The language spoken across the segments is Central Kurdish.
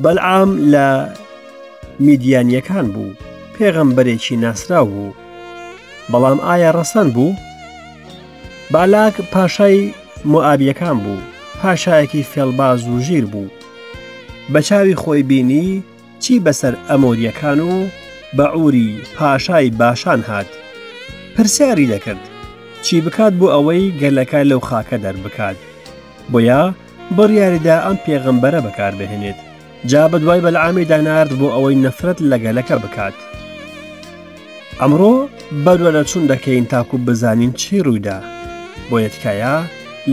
بەلعام لە میدیانیەکان بوو، پێغەمبەرێکی ناسراو بوو. بەڵام ئایا ڕەسەن بوو؟ بالاک پاشای مۆئابیەکان بوو، پاشایەکی فێڵباز و ژیر بوو. بە چاوی خۆی بینی چی بەسەر ئەمۆریەکان و بەعوری پاشای باشان هات. پرسیاری دەکرد چی بکات بۆ ئەوەی گەلەکە لەو خاکە دەربکات. بۆیە بڕیاریدا ئەم پێغەمبەرە بەکاربهێنێت. جا بەدوای بەلعامیدا نارد بۆ ئەوەی نەفرەت لە گەلەکە بکات. ئەمڕۆ بەدواداچوون دەکەین تاکو بزانین چی ڕوویدا، بۆیە تکایە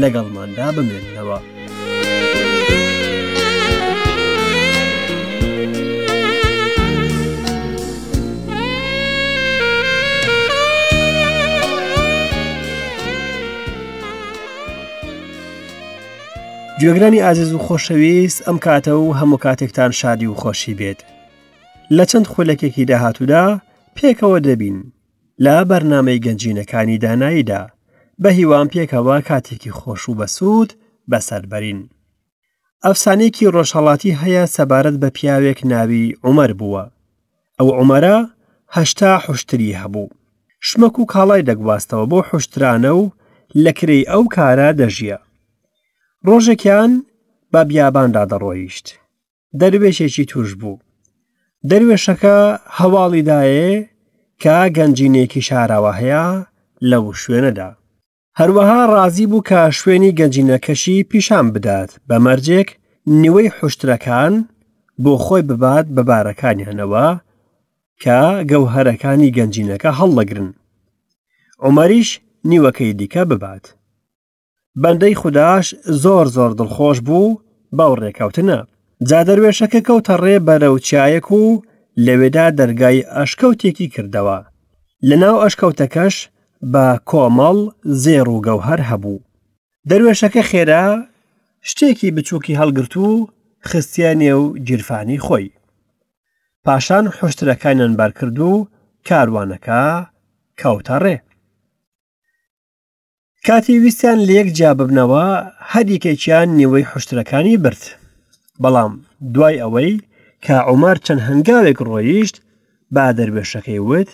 لەگەڵماندا بمێننەوە. گوێگرانی ئازیز و خۆشەویست ئەم کاتە و هەموو کاتێکتان شادی و خۆشی بێت لە چەند خولەکێکی داهاتوودا پێکەوە دەبین لە بەرنامەی گەنجینەکانی داناییدا بە هیوام پێکەوە کاتێکی خۆش و بەسوود بەسەربەرین ئەفسانەیەکی ڕۆژهەڵاتی هەیە سەبارەت بە پیاوێک ناوی عومەر بووە ئەو عومەرە هەشتا حوشتری هەبوو شمەک و کاڵای دەگواستەوە بۆ حوشترانە و لە کرێی ئەو کارە دەژیا ڕۆژێکیان بە بیاباندا دەڕۆیشت دەروێشێکی توش بوو دەروێشەکە هەواڵی دایێ کە گەنجینێکی شاراوە هەیە لەو شوێنەدا هەروەها ڕازی بوو کە شوێنی گەنجینەکەشی پیشان بدات بە مەرجێک نیوەی حوشترەکان بۆ خۆی ببات بە بارەکانیانەوە کە گەوهەرەکانی گەنجینەکە هەڵدەگرن عومەریش نیوەکەی دیکە ببات بەندەی خوداش زۆر زۆر دڵخۆش بوو بەو ڕێکەوتنە جا دەروێشەکە کەوتە ڕێ بەرەو چیایەک و لەوێدا دەرگای ئەشکەوتێکی کردەوە لەناو ئەشکەوتەکەش بە کۆمەڵ زێڕ و گەوهەر هەبوو دەروێشەکە خێرا شتێکی بچووکی هەڵگرت و خستیە نێو گیرفانی خۆی پاشان حوشترەکانیان بارکرد و کاروانەکە کەوتە ڕێ کاتی ویستیان لەیەک جیا ببنەوە هەر یەکێکیان نیوەی حوشترەکانی برد بەڵام دوای ئەوەی کە عومەر چەند هەنگاوێک ڕۆیشت با دەروێشەکەی وت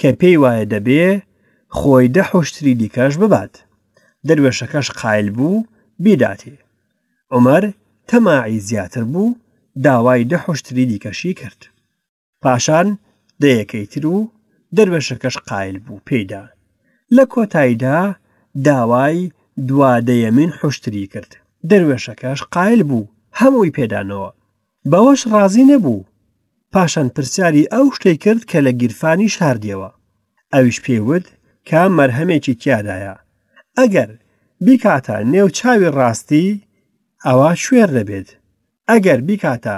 کە پێی وایە دەبێ خۆی دە حوشتری دیکەش ببات دەروێشەکەش قایل بوو بیداتێ عومەر تەماعی زیاتر بوو داوای دە حوشتری دیکەشی کرد پاشان دەیەکەی تر و دەروێشەکەش قایل بوو پێیدا. لە کۆتاییدا داوای دوا دەیەمین حوشتری کرد، دەروێشەکەش قایل بوو هەمووی پێدانەوە. بەوەش ڕازی نەبوو، پاشان پرسیاری ئەو شتەی کرد کە لە گیرفانی شاردیەوە. ئەویش پێی وت کە مەرهەمێکی تیادایە، ئەگەر بیکاتە نێو چاوی ڕاستی ئەوا کوێر دەبێت، ئەگەر بیکاتە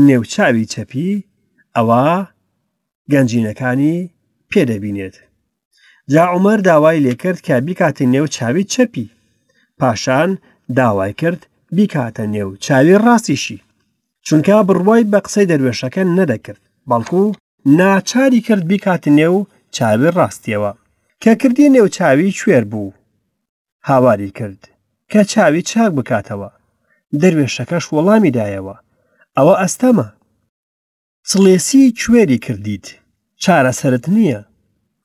نێو چاوی چەپی ئەوا گەنجینەکانی پێ دەبینێت. جا عومەر داوای لێکرد کە بیکاتە نێو چاوی چەپی، پاشان داوای کرد بیکاتە نێو چاوی ڕاستیشی، چونکە بڕوای بە قسەی دەروێشەکە نەدەکرد، بەڵکو ناچاری کرد بیکاتە نێو چاوی ڕاستیەوە، کە کردیە نێو چاوی کوێر بوو. هاواری کرد کە چاوی چاک بکاتەوە، دەروێشەکەش وەڵامی دایەوە، ئەوە ئەستەمە. سڵێسی کوێری کردیت، چارەسەرت نییە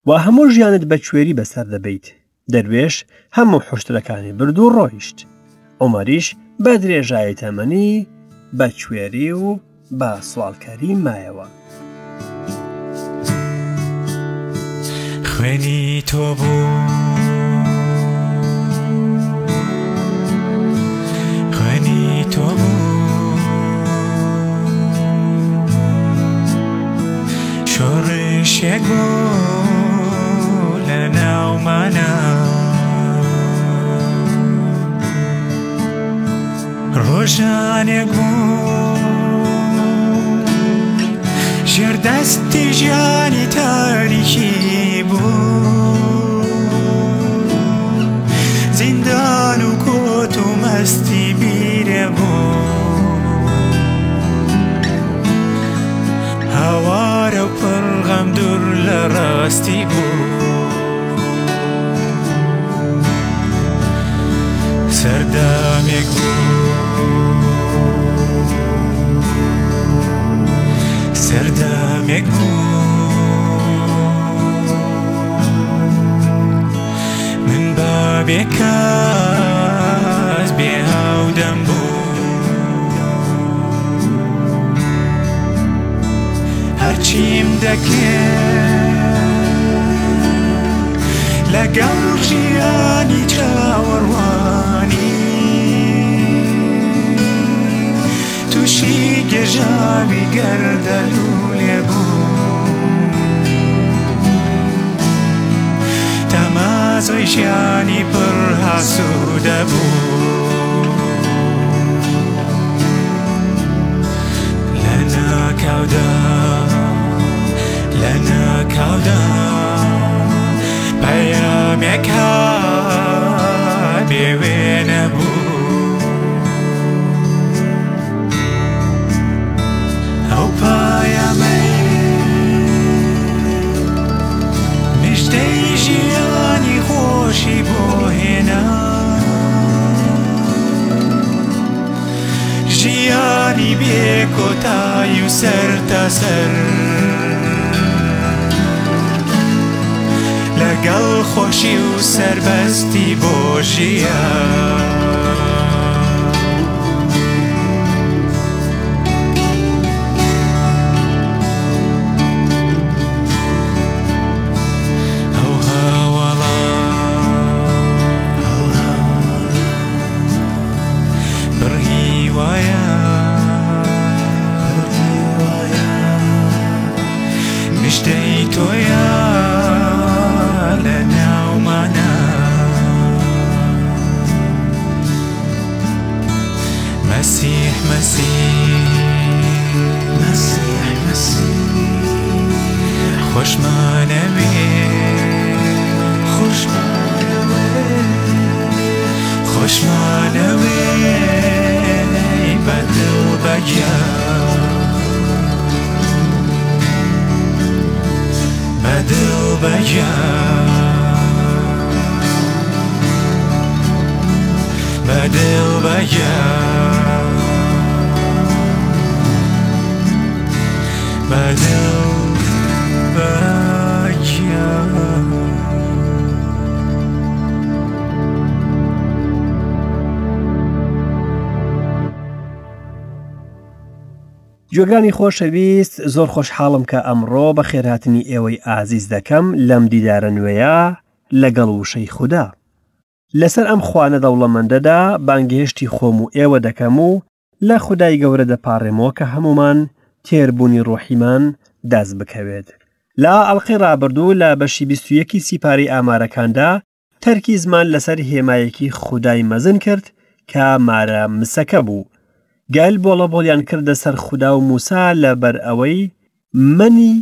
و هەموو ژیانت بە کوێری بەسەر دەبەیت. دەروێش هەموو حوشترەکانی برد و ڕۆیشت. عومەریش بە درێژایی تەمەنی بە کوێری و بە سواڵکەری مایەوە. خوێنی تۆ بوو خوێنی تۆ بوو شۆڕشێک بوو لە ناومانە ڕۆژانێک بوو ژێر دەستی ژیانی تاریکی بوو زیندان و کۆت و مەستی بیرێ بوو هاوارە و پڕ غەم دوور لە ڕاستی بوو سەردامێک بوو. سەردەمێک بوو من بە بێکەس بێ هاودەم بوو هەرچیم دەکرد لەگەڵ ژیانی چاوەڕوانی تووشی گێژاوی گەردەلوولێ بوو تامازۆی ژیانی پڕ ئاسوودە بوو لە ناکاودا لە ناکاودا پەیامێک هات بێ وێنە بوو ئەو پایەمەی مژدەی ژیانی خۆشی بۆ هێنا ژیانی بێ کۆتایی و سەرتاسەر لەگەڵ خۆشی و سەربەستی بۆ ژیان. ئەو هاوەڵە پڕ هیوایە مژدەی تۆیە لە ناومانە مەسیح مەسیح مەسیح مەسیح خۆشمانەوێ خۆشمانەوێ خۆشمانەوێ بە دڵ بە گیان بە دڵ بە گیان بە دڵ بە گیان بە دڵ بە گیان. گوێگرانی خۆشەویست زۆر خۆشحاڵم کە ئەمڕۆ بە خێرهاتنی ئێوەی ئازیز دەکەم لەم دیدارە نوێیە لەگەڵ وشەی خودا. لەسەر ئەم خوانە دەوڵەمەندەدا بانگهێشتی خۆم و ئێوە دەکەم و لە خودای گەورە دەپاڕێمەوە کە هەموومان تێربوونی ڕۆحیمان دەست بکەوێت. لە ئەڵقەی ڕابردوو لە بەشی 21 سیپارەی ئامارەکاندا تەرکیزمان لەسەر هێمایەکی خودای مەزن کرد کە مارە مسەکە بوو. گەل بۆڵەبۆڵیان کردە سەر خودا و موسا لەبەر ئەوەی مەنی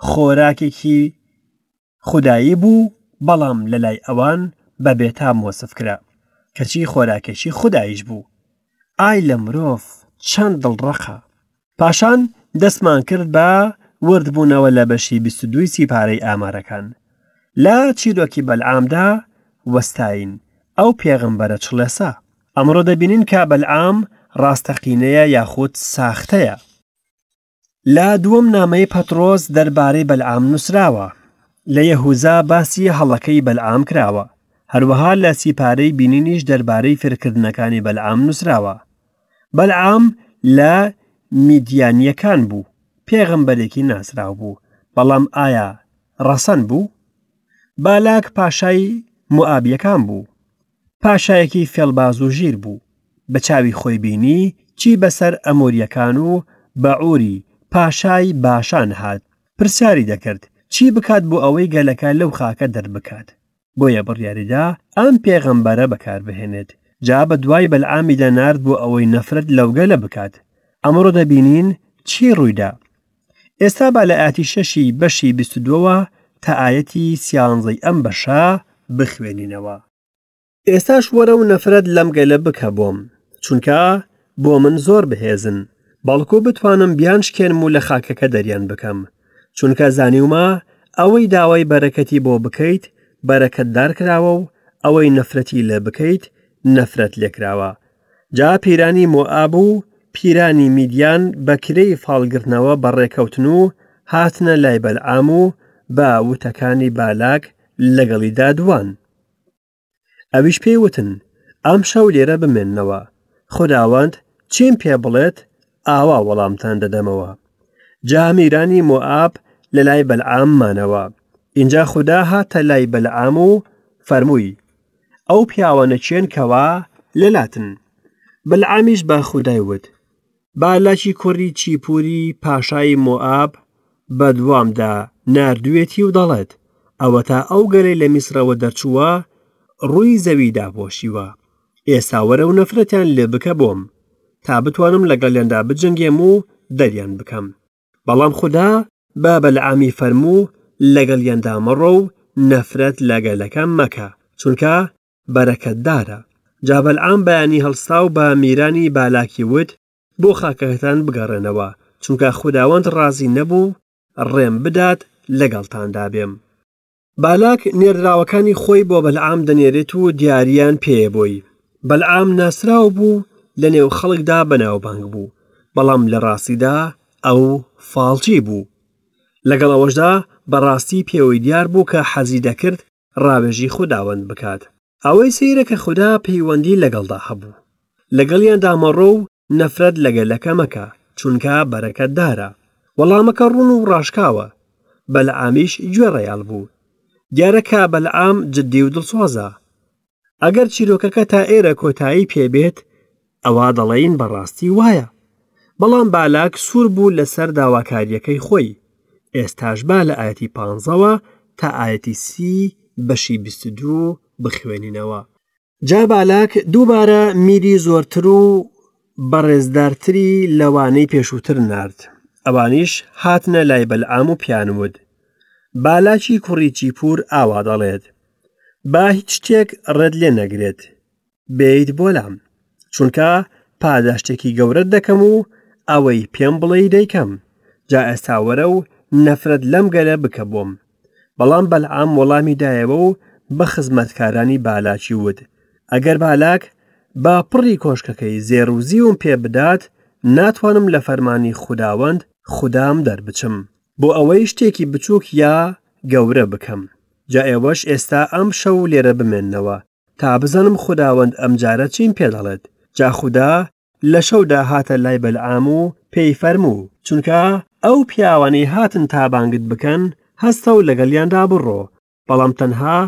خۆراکێکی خودایی بوو بەڵام لەلای ئەوان بە بێتام وەسف کرا کەچی خۆراکێکی خوداییش بوو. ئای لە مرۆڤ چەند دڵڕەقە! پاشان دەستمان کرد بە وردبوونەوە لە بەشی 22 سیپارەی ئامارەکان. لە چیرۆکی بەلعامدا وەستاین، ئەو پێغەمبەرە چڵێسە. ئەمڕۆ دەبینین کە بەلعام ڕاستەقینەیە یاخود ساختەیە. لە دووەم نامەی پەتڕۆس دەربارەی بەلعام نووسراوە. لە یەهوزا باسی هەڵەکەی بەلعام کراوە. هەروەها لە سیپارەی بینینیش دەربارەی فێرکردنەکانی بەلعام نووسراوە. بەلعام لە میدیانییەکان بوو، پێغەمبەرێکی ناسراو بوو، بەڵام ئایا ڕەسەن بوو؟ بالاک پاشای موئابییەکان بوو، پاشایەکی فێڵباز و ژیر بوو، بە چاوی خۆی بینی چی بەسەر ئەمۆرییەکان و بەعوری پاشای باشان هات، پرسیاری دەکرد چی بکات بۆ ئەوەی گەلەکە لەو خاکە دەربکات. بۆیە بڕیاریدا ئەم پێغەمبەرە بەکاربهێنێت، جا بە دوای بەلعامیدا نارد بۆ ئەوەی نەفرەت لەو گەلە بکات. ئەمڕۆ دەبینین چی ڕوویدا. ئێستا با لە ئایەتی شەشی بەشی بیست و دووەوە تا ئایەتی سیانزەی ئەم بەشە بخوێنینەوە. ئێستاش وەرە و نەفرەت لەم گەلە بکە بۆم، چونکە بۆ من زۆر بەهێزن، بەڵکو بتوانم بیانشکێنم و لە خاکەکە دەریان بکەم، چونکە زانیومە ئەوەی داوای بەرەکەتی بۆ بکەیت بەرەکەتدار کراوە و ئەوەی نەفرەتی لێ بکەیت نەفرەت لێکراوە. جا پیرانی مۆئاب و پیرانی میدیان بە کرێی فاڵگرتنەوە بەڕێکەوتن و هاتنە لای بەلعام و بە وتەکانی بالاک لەگەڵیدا دوان. ئەویش پێی وتن، ئەمشەو لێرە بمێننەوە، خوداوەند چیم پێ بڵێت ئاوا وەڵامتان دەدەمەوە. جا میرانی مۆئاب لە لای بەلعام مانەوە. ئینجا خودا هاتە لای بەلعام و فەرمووی، ئەو پیاوانە کێن کەوا لەلاتن؟ بەلعامیش بە خودای وت، بالاکی کوڕی چیپوری پاشای مۆئاب بەدوامدا ناردوویەتی و دەڵێت، ئەوەتا ئەو گەلەی لە میسرەوە دەرچووە ڕووی زەوی داپۆشیوە، ئێستا وەرە و نەفرەتیان لێ بکە بۆم، تا بتوانم لەگەڵیاندا بجەنگێم و دەریان بکەم. بەڵام خودا بە بەلعامی فەرموو، لەگەڵیاندا مەڕۆ و نەفرەت لە گەلەکەم مەکە، چونکە بەرەکەتدارە. جا بەلعام بەیانی هەڵسا و بە میرانی بالاکی وت، بۆ خاکەکەتان بگەڕێنەوە، چونکە خوداوەند ڕازی نەبوو ڕێم بدات لەگەڵتاندا بێم. بالاک نێردراوەکانی خۆی بۆ بەلعام دەنێرێت و دیارییان پێیە بۆی. بەلعام ناسراو بوو، لەنێو خەڵکدا بەناوبانگ بوو، بەڵام لە ڕاستیدا ئەو فاڵچی بوو. لەگەڵ ئەوەشدا بەڕاستی پێوەی دیار بوو کە حەزی دەکرد ڕاوێژی خوداوەند بکات. ئەوەی سەیرە کە خودا پەیوەندی لەگەڵدا هەبوو. لەگەڵیاندا مەڕۆ و نەفرەت لە گەلەکە مەکە، چونکە بەرەکەتدارە. وەڵامەکە ڕوون و ڕاشکاوە. بەلعامیش گوێڕایەڵ بوو. دیارە کە بەلعام جدی و دڵسۆزە. ئەگەر چیرۆکەکە تا ئێرە کۆتایی پێ بێت، ئەوا دەڵێین بەڕاستی وایە. بەڵام بالاک سوور بوو لەسەر داواکارییەکەی خۆی. ئێستاش با لە ئایەتی پانزەوە تا ئایەتی سی بەشی 22 بخوێنینەوە. جا بالاک دووبارە میری زۆرتر و بەڕێزدارتری لەوانەی پێشووتر نارد. ئەوانیش هاتنە لای بەلعام و پێیان وت، بالاکی کوڕی چیپور ئاوا دەڵێت، با هیچ شتێک ڕێت لێ نەگرێت بێیت بۆ لام، چونکە پاداشتێکی گەورەت دەکەم و ئەوەی پێم بڵێی دەیکەم، جا ئێستا وەرە و نەفرەت لەم گەلە بکە بۆم. بەڵام بەلعام وەڵامی دایەوە و بە خزمەتکارانی بالاکی وت، ئەگەر بالاک بە پڕی کۆشکەکەی زێڕ و زیوم پێ بدات، ناتوانم لە فەرمانی خوداوەند خودام دەربچم، بۆ ئەوەی شتێکی بچووک یا گەورە بکەم. جا ئێوەش ئێستا ئەمشەو لێرە بمێننەوە، تا بزانم خوداوەند ئەمجارە چیم پێ دەڵێت. جا خودا لە شەودا هاتە لای بەلعام و پێی فەرموو، چونکە ئەو پیاوانەی هاتن تا بانگت بکەن، هەستە و لەگەڵیاندا بڕۆ، بەڵام تەنها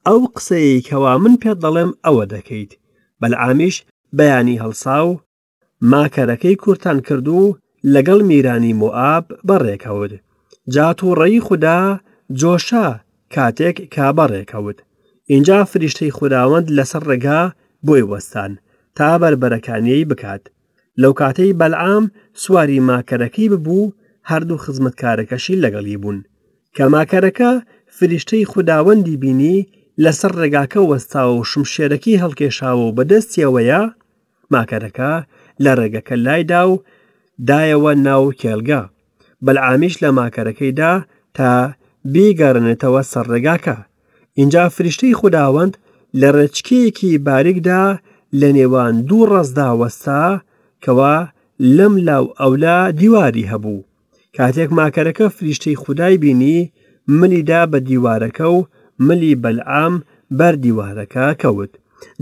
ئەو قسەیەی کەوا من پێت دەڵێم ئەوە دەکەیت. بەلعامیش بەیانی هەڵسا و ماکەرەکەی کورتان کرد و لەگەڵ میرانی مۆئاب بەڕێکەوت. جا تووڕەیی خودا جۆشا کاتێک کە بەڕێکەوت. ئینجا فریشتەی خوداوەند لەسەر ڕێگا بۆی وەستان تا بەربەرەکانیی بکات. لەو کاتەی بەلعام سواری ماکەرەکەی ببوو، هەردوو خزمەتکارەکەشی لەگەڵی بوون. کە ماکەرەکە فریشتەی خوداوەندی بینی لەسەر ڕێگاکە وەستاوە و شمشێرەکەی هەڵکێشاوە و بەدەستیەوەیە، ماکەرەکە لە ڕێگەکە لایدا و دایەوە ناو کێڵگە. بەلعامیش لە ماکەرەکەی دا تا بیگەڕێنێتەوە سەر ڕێگاکە. ئینجا فریشتەی خوداوەند لە ڕێچکەیەکی باریکدا لە نێوان دوو ڕەزدا وەستا کەوا لەم لا و ئەولا دیواری هەبوو. کاتێک ماکەرەکە فریشتەی خودای بینی، ملی دا بە دیوارەکە و ملی بەلعام بەر دیوارەکە کەوت.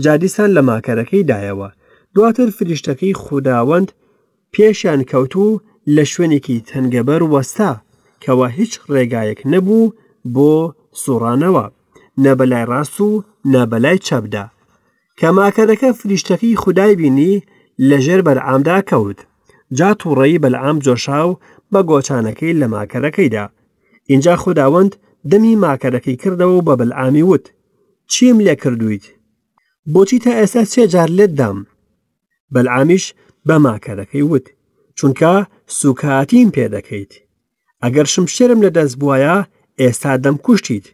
جا دیسان لە ماکەرەکەی دایەوە. دواتر فریشتەکەی خوداوەند پێشیان کەوت و لە شوێنێکی تەنگەبەر وەستا، کەوا هیچ ڕێگایەک نەبوو بۆ سوڕانەوە، نە بەلای ڕاست و نە بەلای چەپدا. کە ماکەرەکە فریشتەکەی خودای بینی، لەژێر بەلعامدا کەوت. جا تووڕەیی بەلعام جۆشا و بە گۆچانەکەی لە ماکەرەکەی دا. ئینجا خوداوەند دەمی ماکەرەکەی کردەوە و بە بەلعامی وت، چیم لێ کردوویت؟ بۆچی تا ئێستا سێ جار لێت دام؟ بەلعامیش بە ماکەرەکەی وت، چونکە سووکایەتیم پێ دەکەیت. ئەگەر شمشێرم لە دەست بوایە ئێستا دەمکوشتیت.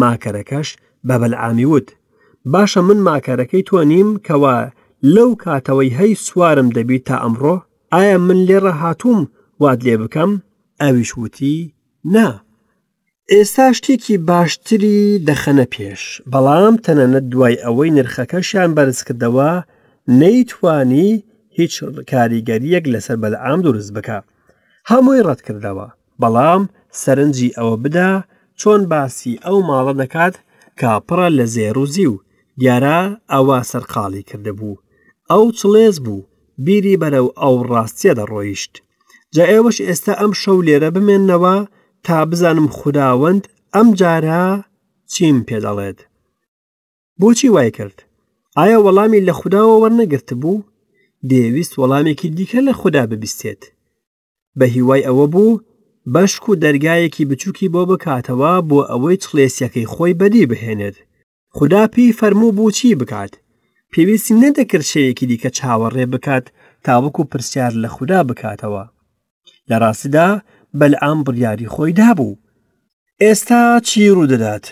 ماکەرەکەش بە بەلعامی وت، باشە من ماکەرەکەی تۆ نیم کەوا لەو کاتەوەی هەی سوارم دەبیت تا ئەمڕۆ؟ ئایا من لێرە هاتووم وات لێ بکەم؟ ئەویش وتی، نا. ئێستا شتێکی باشتری دەخەنە پێش، بەڵام تەنانەت دوای ئەوەی نرخەکەشیان بەرزکردەوە، نەیتوانی هیچ کاریگەرییەک لەسەر بەلعام دروست بکا. هەمووی ڕەتکردەوە، بەڵام سەرنجی ئەوە بدە چۆن باسی ئەو ماڵە دەکات کە پڕە لە زێڕ و زیو، دیارە ئەوە سەرقاڵی کردبوو. ئەو چڵێس بوو، بیری بەرەو ئەو ڕاستیە دەڕۆیشت. جا ئێوەش ئێستا ئەم شەو لێرە بمێننەوە تا بزانم خوداوەند ئەم جارە چیم پێ دەڵێت. بۆچی وای کرد؟ ئایا وەڵامی لە خوداوە وەرنەگرتبوو؟ دەیەویست وەڵامێکی دیکە لە خودا ببیستێت. بە هیوای ئەوە بوو بەشک و دەرگایەکی بچووکی بۆ بکاتەوە بۆ ئەوەی چڵێسیەکەی خۆی بەدی بهێنێت. خودا پێی فەرموو بوو چی بکات. پێویستی نەدەکرد شەوێکی دیکە چاوەڕێ بکات تاوەکو پرسیار لە خودا بکاتەوە. لە ڕاستیدا بەلعام بڕیاری خۆی دابوو. ئێستا چی ڕوودەدات؟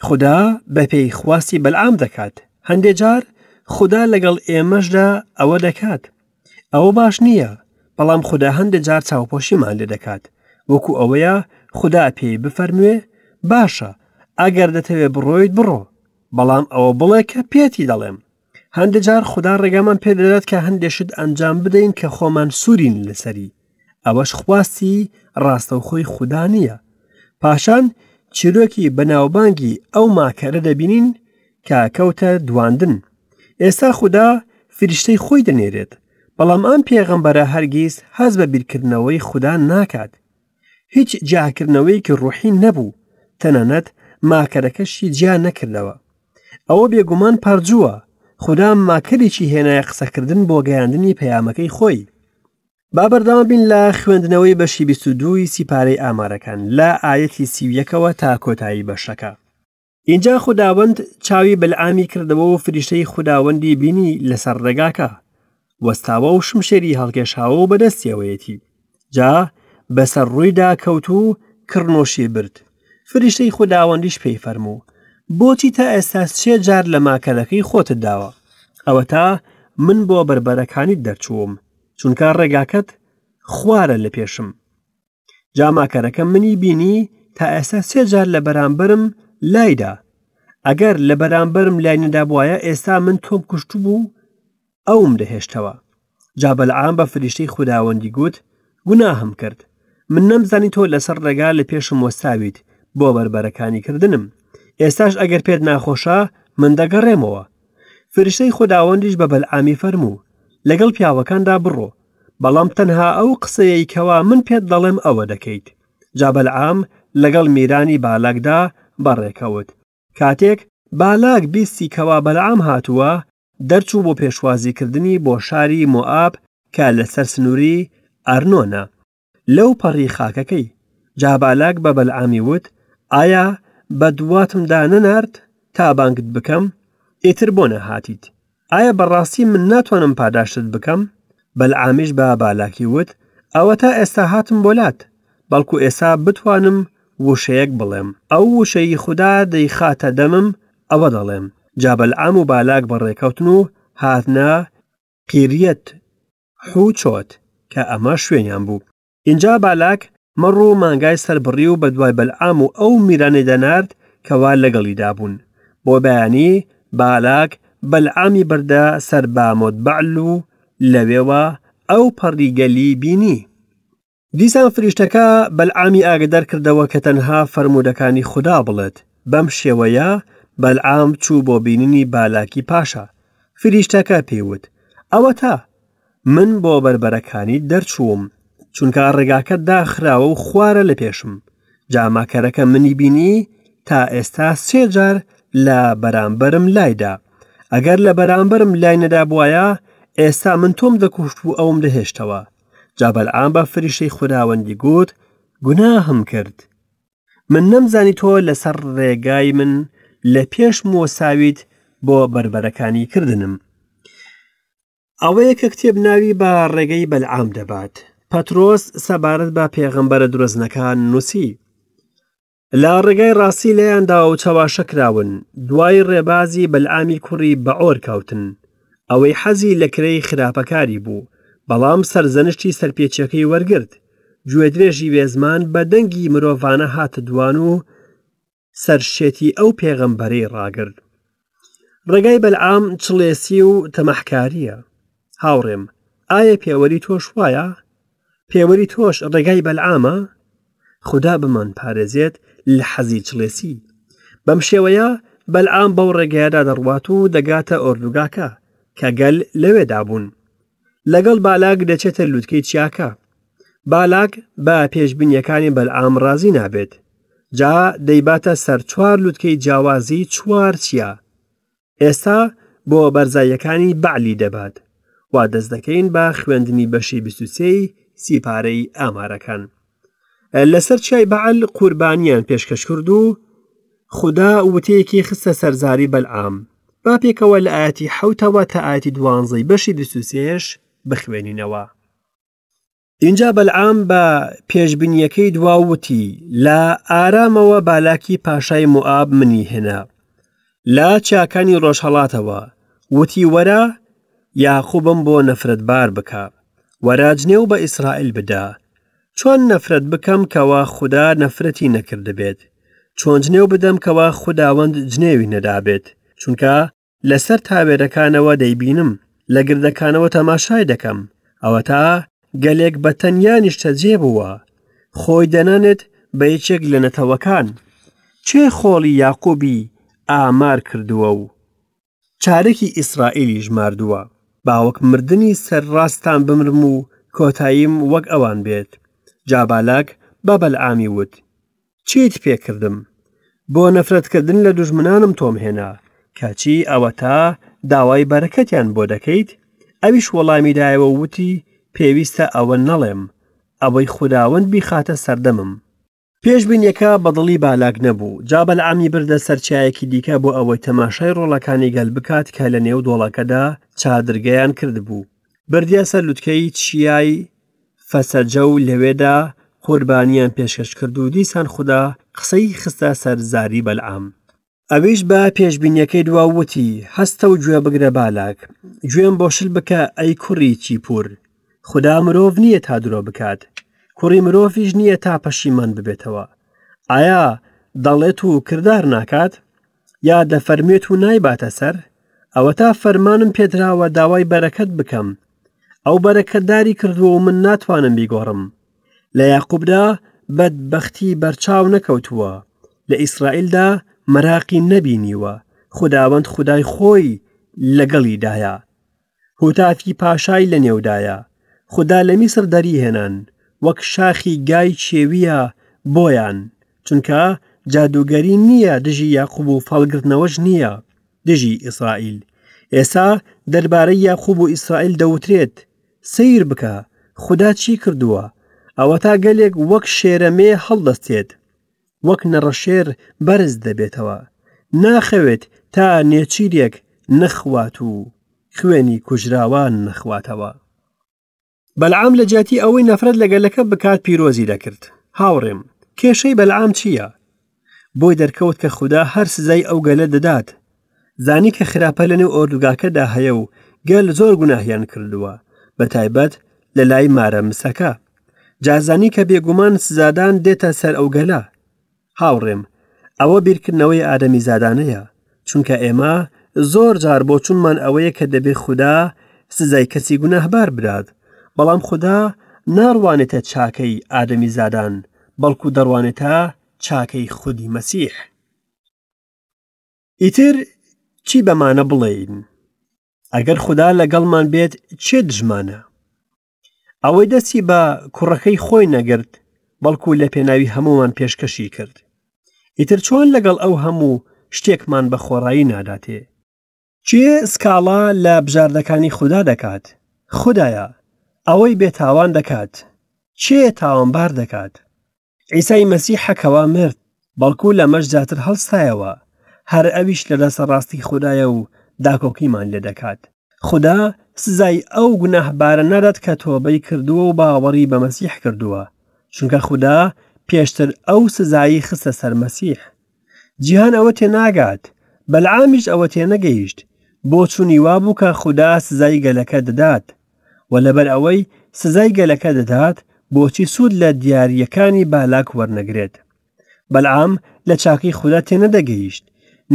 خودا بەپێی خواستی بەلعام دەکات. هەندێ جار خودا لەگەڵ ئێمەشدا ئەوە دەکات. ئەوە باش نییە، بەڵام خودا هەندێ جار چاوپۆشیمان لێ دەکات. وەکو ئەوەیە خودا پێی بفەرموێ، باشە، ئەگەر دەتەوێ بڕۆیت بڕۆ، بەڵام ئەوە بڵێ کە پێتی دەڵێم. هەندێ جار خودا ڕێگامان پێدەدات کە هەندێ شت ئەنجام بدەین کە خۆمان سوورین لەسەری. ئەوەش خواستی ڕاستەوخۆی خودا نییە. پاشان چیرۆکی بەناوبانگی ئەو ماکەرە دەبینین کە کەوتە دواندن. ئێستا خودا فریشتەی خۆی دەنێرێت، بەڵام ئەم پێغەمبەرە هەرگیز هەست بە بیرکردنەوەی خودا ناکات. هیچ جیاکردنەوەیەکی ڕوحی نەبوو، تەنانەت ماکەرەکەشی جیا نەکردەوە. ئەوە بێگومان پەرجووە، خودا ماکەرێکی هێنایە قسەکردن بۆ گەیاندنی پەیامەکەی خۆی. با بەردەوام بین لە خوێندنەوەی بەشی 22 ی سیپارەی ئامارەکان لە ئایەتی 31ەوە تا کۆتایی بەشەکە. ئینجا خوداوەند چاوی بەلعامی کردەوە و فریشتەی خوداوەندی بینی لەسەر ڕێگاکە وەستاوە و شمشێری هەڵکێشاوە و بەدەستیەوەیەتی. جا بەسەر ڕوویدا کەوت و کڕنۆشی برد. فریشتەی خوداوەندیش پێی فەرموو، بۆچی تا ئێستا سێ جار لە ماکەرەکەی خۆتت داوە؟ ئەوەتا من بۆ بەربەرەکانیت دەرچووم، چونکە ڕێگاکەت خوارە لە پێشم. جا ماکەرەکە منی بینی تا ئێستا سێ جار لە بەرامبەرم لایدا. ئەگەر لە بەرامبەرم لای نەدابوایە ئێستا من تۆم کوشتبوو ئەوم دەهێشتەوە. جا بەلعام بە فریشتەی خوداوەندی گوت، گوناهم کرد. من نەمزانی تۆ لەسەر ڕێگا لە پێشم وەستاویت بۆ بەربەرەکانی کردنم. ئێستاش ئەگەر پێت ناخۆشە، من دەگەڕێمەوە. فریشتەی خوداوەندیش بە بەلعامی فەرموو، لەگەڵ پیاوەکاندا بڕۆ، بەڵام تەنها ئەو قسەیەی کەوا من پێت دەڵێم ئەوە دەکەیت. جا بەلعام لەگەڵ میرانی بالاکدا بەڕێکەوت. کاتێک بالاک بیستی کەوا بەلعام هاتووە، دەرچوو بۆ پێشوازیکردنی بۆ شاری مۆئاب کە لەسەر سنووری ئەرنۆنە، لەو پەڕی خاکەکەی. جا بالاک بە بەلعامی وت، ئایا بەدواتمدا نەنارد تا بانگت بکەم؟ ئیتر بۆ نەهاتیت؟ ئایا بەڕاستی من ناتوانم پاداشتت بکەم؟ بەلعامیش بە بالاکی وت، ئەوەتا ئێستا هاتم بۆ لات، بەڵکو ئێستا بتوانم وشەیەک بڵێم، ئەو وشەی خودا دەیخاتە دەمم ئەوە دەڵێم. جا بەلعام و بالاک بەڕێکەوتن و هاتنە قیریەت حوچۆت، کە ئەمە شوێنیان بوو. ئینجا بالاک مەڕ و مانگای سەربڕی و بەدوای بەلعام و ئەو میرانەیدا نارد کەوا لەگەڵیدا بوون. بۆ بەیانی بالاک بەلعامی بردە سەر بامۆت بەعل و لەوێوە ئەو پەڕی گەلی بینی. دیسان فریشتەکە بەلعامی ئاگەدار کردەوە کە تەنها فەرموودەکانی خودا بڵێت. بەم شێوەیە بەلعام چوو بۆ بینینی بالاکی پاشا. فریشتەکە پێی وت، ئەوەتا، من بۆ بەربەرەکانیت دەرچووم، چونکە ڕێگاکە داخراوە و خوارە لە پێشم. جا ماکەرەکە منی بینی تا ئێستا سێ جار لە بەرامبەرم لایدا. ئەگەر لە بەرامبەرم لای نەدابوایە، ئێستا من تۆم دەکوشت و ئەوم دەهێشتەوە. جا بەلعام بە فریشتەی خوداوەندی گوت، گوناهم کرد. من نەمزانی تۆ لەسەر ڕێگای من لە پێشم وەساویت بۆ بەربەرەکانی کردنم. ئەوەیە کە کتێب ناوی بە ڕێگەی بەلعام دەبات. پەترۆس سەبارەت بە پێغەمبەرە درۆزنەکان نووسی، لە ڕێگای ڕاستی لێیان داوە و چەواشە کراون، دوای ڕێبازی بەلعامی کوڕی بەعۆر کەوتن، ئەوەی حەزی لە کرێی خراپەکاری بوو، بەڵام سەرزەنشتی سەرپێچیەکەی وەرگرت. گوێدرێژی بێزمان بە دەنگی مرۆڤانە هاتە دوان و سەرشێتی ئەو پێغەمبەرەی ڕاگرت. ڕێگای بەلعام چڵێسی و تەماحکارییە. هاوڕێم، ئایا پێوەری تۆش وایە؟ پێوەری تۆش ڕێگای بەلعامە؟ خودا بمان پارێزێت لە حەزی چڵێسی. بەم شێوەیە بەلعام بەو ڕێگایەدا دەڕوات و دەگاتە ئۆردوگاکە کە گەل لەوێدا بوون. لەگەڵ بالاک دەچێتە لوتکەی چیاکە. بالاک بە پێشبینیەکانی بەلعام ڕازی نابێت. جا دەیباتە سەر چوار لوتکەی جیاوازی چوار چیا. ئێستا بۆ بەرزاییەکانی بەعلی دەبات. وا دەست دەکەین بە خوێندنی بەشی 23 سیپارەی ئامارەکان. لەسەر چیای بەعل قوربانیان پێشکەش کرد و خودا وتەیەکی خستە سەرزاری بەلعام. با پێکەوە لە ئاەتی حوتەوە تا ئاەتی دوانزەی بەشی 23 بخوێنینەوە. ئینجا بەلعام بە پێشبینیەکەی دوا وتی لە ئارامەوە بالاکی پاشای موئاب منی هێنا لە چیاکانی ڕۆژهەڵاتەوە وتی وەرە یاقوبم بۆ نەفرەتبار بکە وەرە جنێو بە ئیسرائیل بدە چۆن نەفرەت بکەم کەوا خودا نەفرەتی نەکردبێت چۆن جنێو بدەم کەوا خوداوەند جنێوی نەدابێت چونکە لەسەر تاوێرەکانەوە دەیبینم، لە گردەکانەوە تەماشای دەکەم، ئەوەتا گەلێک بە تەنیا نیشتەجێ بووە، خۆی دەنانێت بە یەکێک لە نەتەوەکان. کێ خۆڵی یاقوبی ئامار کردووە و چارەکی ئیسرائیلی ژماردووە؟ با وەک مردنی سەرڕاستان بمرم و کۆتاییم وەک ئەوان بێت. جا بالاک بە بەلعامی وت، چیت پێ کردم؟ بۆ نەفرەتکردن لە دوژمنانم تۆم هێنا، کەچی ئەوەتا داوای بەرەکەتیان بۆ دەکەیت؟ ئەویش وەڵامی دایەوە و وتی، پێویستە ئەوە نەڵێم، ئەوەی خوداوەند بیخاتە سەردەمم. پێشبینیەکە بە دڵی بالاک نەبوو، جا بەلعامی بردە سەر چیایەکی دیکە بۆ ئەوەی تەماشای ڕۆڵەکانی گەل بکات کە لەنێو دۆڵەکەدا چادرگەیان کردبوو. بردیە سەر لوتکەی چیای فەسەجە و لەوێدا قوربانیان پێشکەش کرد و دیسان خودا قسەی خستە سەر زاری بەلعام. ئەویش بە پێشبینیەکەی دوا و وتی، هەستە و گوێ بگرە بالاک، گوێم بۆ شل بکە ئەی کوڕی چیپور، خودا مرۆڤ نییە تا درۆ بکات، کوڕی مرۆڤیش نییە تا پەشیمان ببێتەوە. ئایا دەڵێت و کردار ناکات؟ یا دەفەرموێت و نایباتە سەر؟ ئەوەتا فەرمانم پێدراوە داوای بەرەکەت بکەم، ئەو بەرەکەتداری کردووە و من ناتوانم بیگۆڕم. لە یاقوبدا بەدبەختی بەرچاو نەکەوتووە، لە ئیسرائیلدا مەراقی نەبینیوە، خوداوەند خودای خۆی لەگەڵیدایە. هوتافی پاشای لەنێودایە. خودا لە میسر دەریهێنان، وەک شاخی گای کێوییە بۆیان، چونکە جادووگەری نییە دژی یاقوب و فاڵگرتنەوەش نییە دژی ئیسرائیل. ئێستا دەربارەی یاقوب و ئیسرائیل دەوترێت، سەیر بکە، خودا چی کردووە! ئەوەتا گەلێک وەک شێرە مێ هەڵدەستێت، وەک نەڕەشێر بەرز دەبێتەوە، ناخەوێت تا نێچیرێک نەخوات و خوێنی کوژراوان نەخواتەوە. بەلعام لە جیاتی ئەوەی نەفرەت لە گەلەکە بکات پیرۆزی دەکرد. هاوڕێم، کێشەی بەلعام چییە؟ بۆی دەرکەوت کە خودا هەر سزای ئەو گەلە دەدات. زانی کە خراپە لەنێو ئۆردوگاکەدا هەیە و گەل زۆر گوناهیان کردووە، بە تایبەت لە لای مارە مسەکە. جا زانی کە بێگومان سزادان دێتە سەر ئەو گەلە. هاوڕێم، ئەوە بیرکردنەوەی ئادەمیزادانەیە، چونکە ئێمە زۆر جار بۆچونمان ئەوەیە کە دەبێ خودا سزای کەسی گوناهبار بدات، بەڵام خودا ناڕوانێتە چاکەی ئادەمیزادان، بەڵکو دەڕوانێتە چاکەی خودی مەسیح. ئیتر چی بەمانە بڵێین؟ ئەگەر خودا لەگەڵمان بێت کێ دژمانە؟ ئەوەی دەستی بە کوڕەکەی خۆی نەگرت بەڵکو لە پێناوی هەموومان پێشکەشی کرد ئیتر چۆن لەگەڵ ئەو هەموو شتێکمان بە خۆڕایی ناداتێ کێ سکاڵا لە بژاردەکانی خودا دەکات خودایە ئەوەی بێتاوان دەکات کێ تاوانبار دەکات عیسای مەسیحە کەوا مرد، بەڵکو لەمەش زیاتر هەڵستایەوە، هەر ئەویش لە دەستە ڕاستی خودایە و داکۆکیمان لێ دەکات. خودا سزای ئەو گوناهبارە نادات کە تۆبەی کردووە و باوەڕی بە مەسیح کردووە، چونکە خودا پێشتر ئەو سزایی خستە سەر مەسیح. جیهان ئەوە تێناگات، بەلعامیش ئەوە تێنەگەیشت، بۆچوونی وابوو کە خودا سزای گەلەکە دەدات، و لەبەر ئەوەی سزای گەلەکە دەدات بۆچی سوود لە دیارییەکانی بالاک وەرنەگرێت بەلعام لە چاکەی خودا تێنەدەگەیشت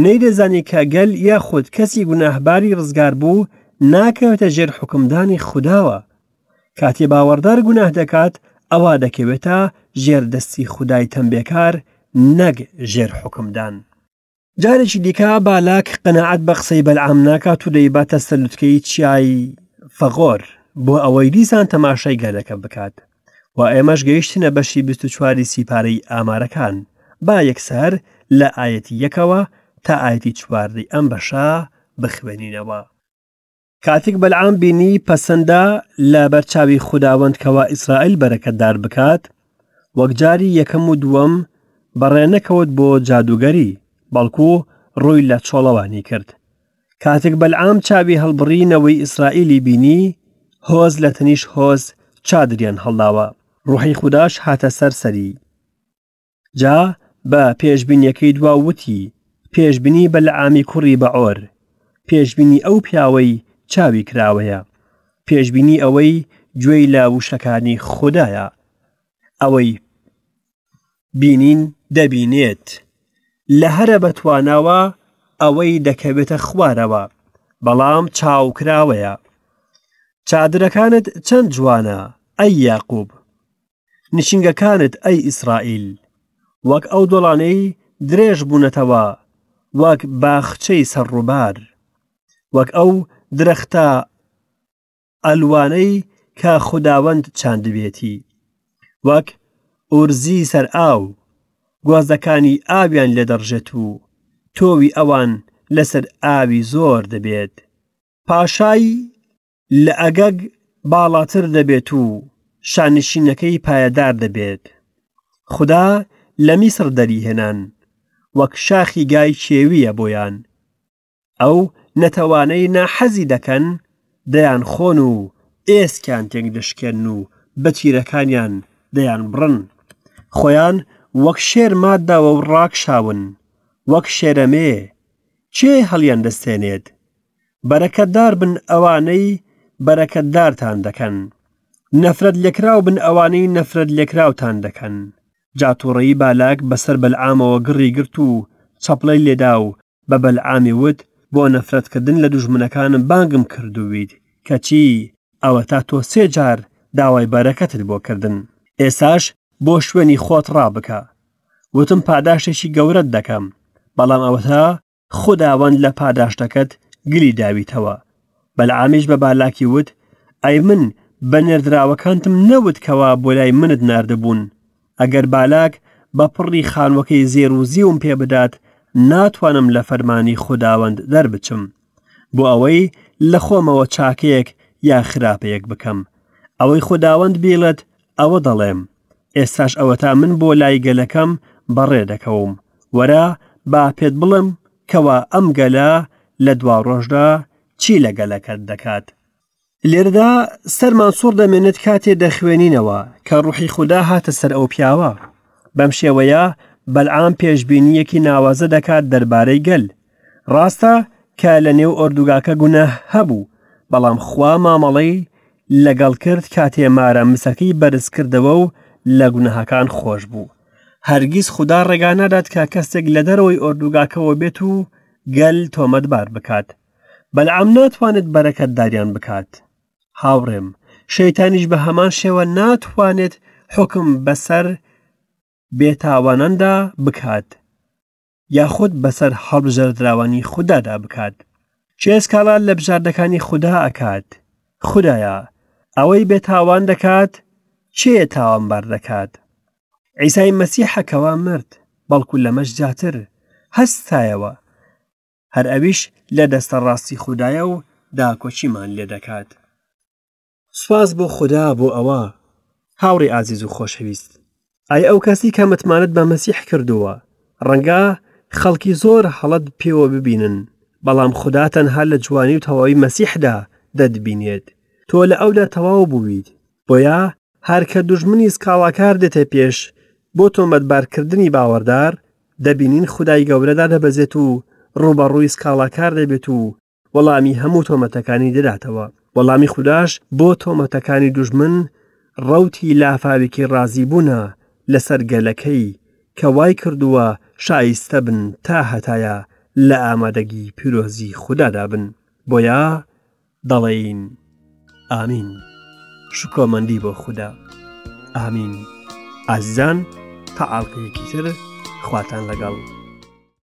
نەیدەزانی کە گەل یاخود کەسی گوناهباری ڕزگار بوو ناکەوێتە ژێر حوکمدانی خوداوە. کاتێ باوەڕدار گوناه دەکات ئەوا دەکەوێتە ژێر دەستی خودای تەمبێکار نەک ژێر حوکمدان. جارێکی دیکە بالاک قەناعەت بە قسەی بەلعام ناکات و دەیباتە سەر لوتکەی چیای فەغۆر بۆ ئەوەی دیسان تەماشای گەلەکە بکات و ئێمەش گەیشتنە بەشی 24 سیپارەی ئامارەکان با یەکسەر لە ئایەتی یەکەوە تا ئایەتی چواردەی ئەم بەشە بخوێنینەوە. کاتێک بەلعام بینی پەسەندە لە بەرچاوی خوداوەند کەوا ئیسرائیل بەرەکەتدار بکات، وەک جاری یەکەم و دووەم بەڕێ نەکەوت بۆ جادووگەری، بەڵکو ڕووی لە چۆڵەوانی کرد. کاتێک بەلعام چاوی هەڵبڕی نەوەی ئیسرائیلی بینی، هۆز لە تەنیشت هۆز چادریان هەڵداوە، ڕوحی خوداش هاتە سەر سەری. جا بە پێشبینیەکەی دوا وتی، پێشبینی بەلعامی کوڕی بەعۆر، پێشبینی ئەو پیاوەی چاوی کراوەیە، پێشبینی ئەوەی گوێی لە وشەکانی خودایە، ئەوەی بینین دەبینێت، لە هەرە بەتواناوە ئەوەی دەکەوێتە خوارەوە، بەڵام چاو کراوەیە. چادرەکانت چەند جوانە، ئەی یاقوب! نشینگەکانت ئەی ئیسرائیل، وەک ئەو دۆڵانەی درێژ بوونەتەوە، وەک باخچەی سەر ڕووبار، وەک ئەو درەختە ئەلوانەی کە خوداوەند چاندبێتی، وەک ئورزی سەر ئاو، گۆزەکانی ئاویان لێ دەڕژێت و تۆوی ئەوان لەسەر ئاوی زۆر دەبێت. پاشای لە ئەگەگ باڵاتر دەبێت و شانشینەکەی پایەدار دەبێت. خودا لە میسڕ دەریهێنان، وەک شاخی گای کێوییە بۆیان. ئەو نەتەوانەی ناحەزی دەکەن دەیانخۆن و ئێسکیان تێکدەشکێنن و بە تیرەکانیان دەیانبڕن. خۆیان وەک شێر ماتداوە و ڕاکشاون، وەک شێرەمێ، کێ هەڵیاندەستێنێت؟ بەرەکەتدار بن ئەوانەی بەرەکەتدارتان دەکەن، نەفرەت لێکراو بن ئەوانەی نەفرەت لێکراوتان دەکەن. جا تووڕەیی بالاک بەسەر بەلعامەوە گڕی گرت و چەپڵەی لێدا و بە بەلعامی وت، بۆ نەفرەتکردن لە دوژمنەکانم بانگم کردوویت، کەچی ئەوەتا تۆ سێ جار داوای بەرەکەتت بۆ کردن. ئێستاش بۆ شوێنی خۆت ڕابکە. وتم پاداشتێکی گەورەت دەکەم، بەڵام ئەوەتا خوداوەند لە پاداشتەکەت گلی داویتەوە. بەلعامیش بە بالاکی وت، ئەی من بە نێردراوەکانتم نەوت کەوا بۆ لای منت ناردبوون، ئەگەر بالاک بە پڕی خانووەکەی زێر و زیوم پێ بدات، ناتوانم لە فەرمانی خوداوەند دەربچم، بۆ ئەوەی لە خۆمەوە چاکەیەک یا خراپەیەک بکەم. ئەوەی خوداوەند بیڵێت ئەوە دەڵێم. ئێستاش ئەوەتا من بۆ لای گەلەکەم بەڕێ دەکەوم. وەرە با پێت بڵێم کەوا ئەم گەلە لە دواڕۆژدا چی لە گەلەکەت دەکات. لێرەدا سەرمان سوڕ دەمێنێت کاتێ دەخوێنینەوە کە ڕوحی خودا هاتە سەر ئەو پیاوە. بەم شێوەیە بەلعام پێشبینییەکی ناوازە دەکات دەربارەی گەل. ڕاستە کە لە نێو ئۆردوگاکە گوناه هەبوو، بەڵام خوا مامەڵەی لەگەڵ کرد کاتێ مارە مسەکەی بەرز کردەوە و لە گوناهەکان خۆش بوو. هەرگیز خودا ڕێگا نادات کە کەسێک لە دەرەوەی ئۆردوگاکەوە بێت و گەل تۆمەتبار بکات. بەلعام ناتوانێت بەرەکەتداریان بکات. هاوڕێم، شەیتانیش بە هەمان شێوە ناتوانێت حوکم بەسەر بێتاواناندا بکات. یاخود بەسەر هەڵبژێردراوانی خودادا بکات. کێ سکاڵا لە بژاردەکانی خودا ئەکات؟ خودایە، ئەوەی بێتاوان دەکات، کێ تاوانبار دەکات؟ عیسای مەسیحە کەوا مرد، بەڵکو لەمەش زیاتر، هەستایەوە. هەر ئەویش لە دەستە ڕاستی خودایە و داکۆکیمان لێ دەکات. سوپاس بۆ خودا بۆ ئەوە. هاوڕێی ئازیز و خۆشەویست، ئای ئەو کەسی کە متمانەت بە مەسیح کردووە، ڕەنگە خەڵکی زۆر هەڵەت پێوە ببینن، بەڵام خودا تەنها لە جوانی و تەواوی مەسیحدا دەتبینێت. تۆ لە ئەودا تەواو بوویت. بۆیە هەر کە دوژمنی سکاڵاکار دێتە پێش بۆ تۆمەتبارکردنی باوەڕدار، دەبینین خودای گەورە دادەبەزێت و ڕووبەڕووی سکاڵاکار دەبێت و وەڵامی هەموو تۆمەتەکانی دەداتەوە. وەڵامی خوداش بۆ تۆمەتەکانی دوژمن ڕەوتی لافاوێکی ڕازیبوونە لەسەر گەلەکەی کە وای کردووە شایستە بن تا هەتایە لە ئامادەگی پیرۆزی خودادا بن. بۆیە دەڵێین ئامین. شکۆمەندی بۆ خودا ئامین ئازیزان تا ئاڵقەیەکی تر خواتان لەگەڵ.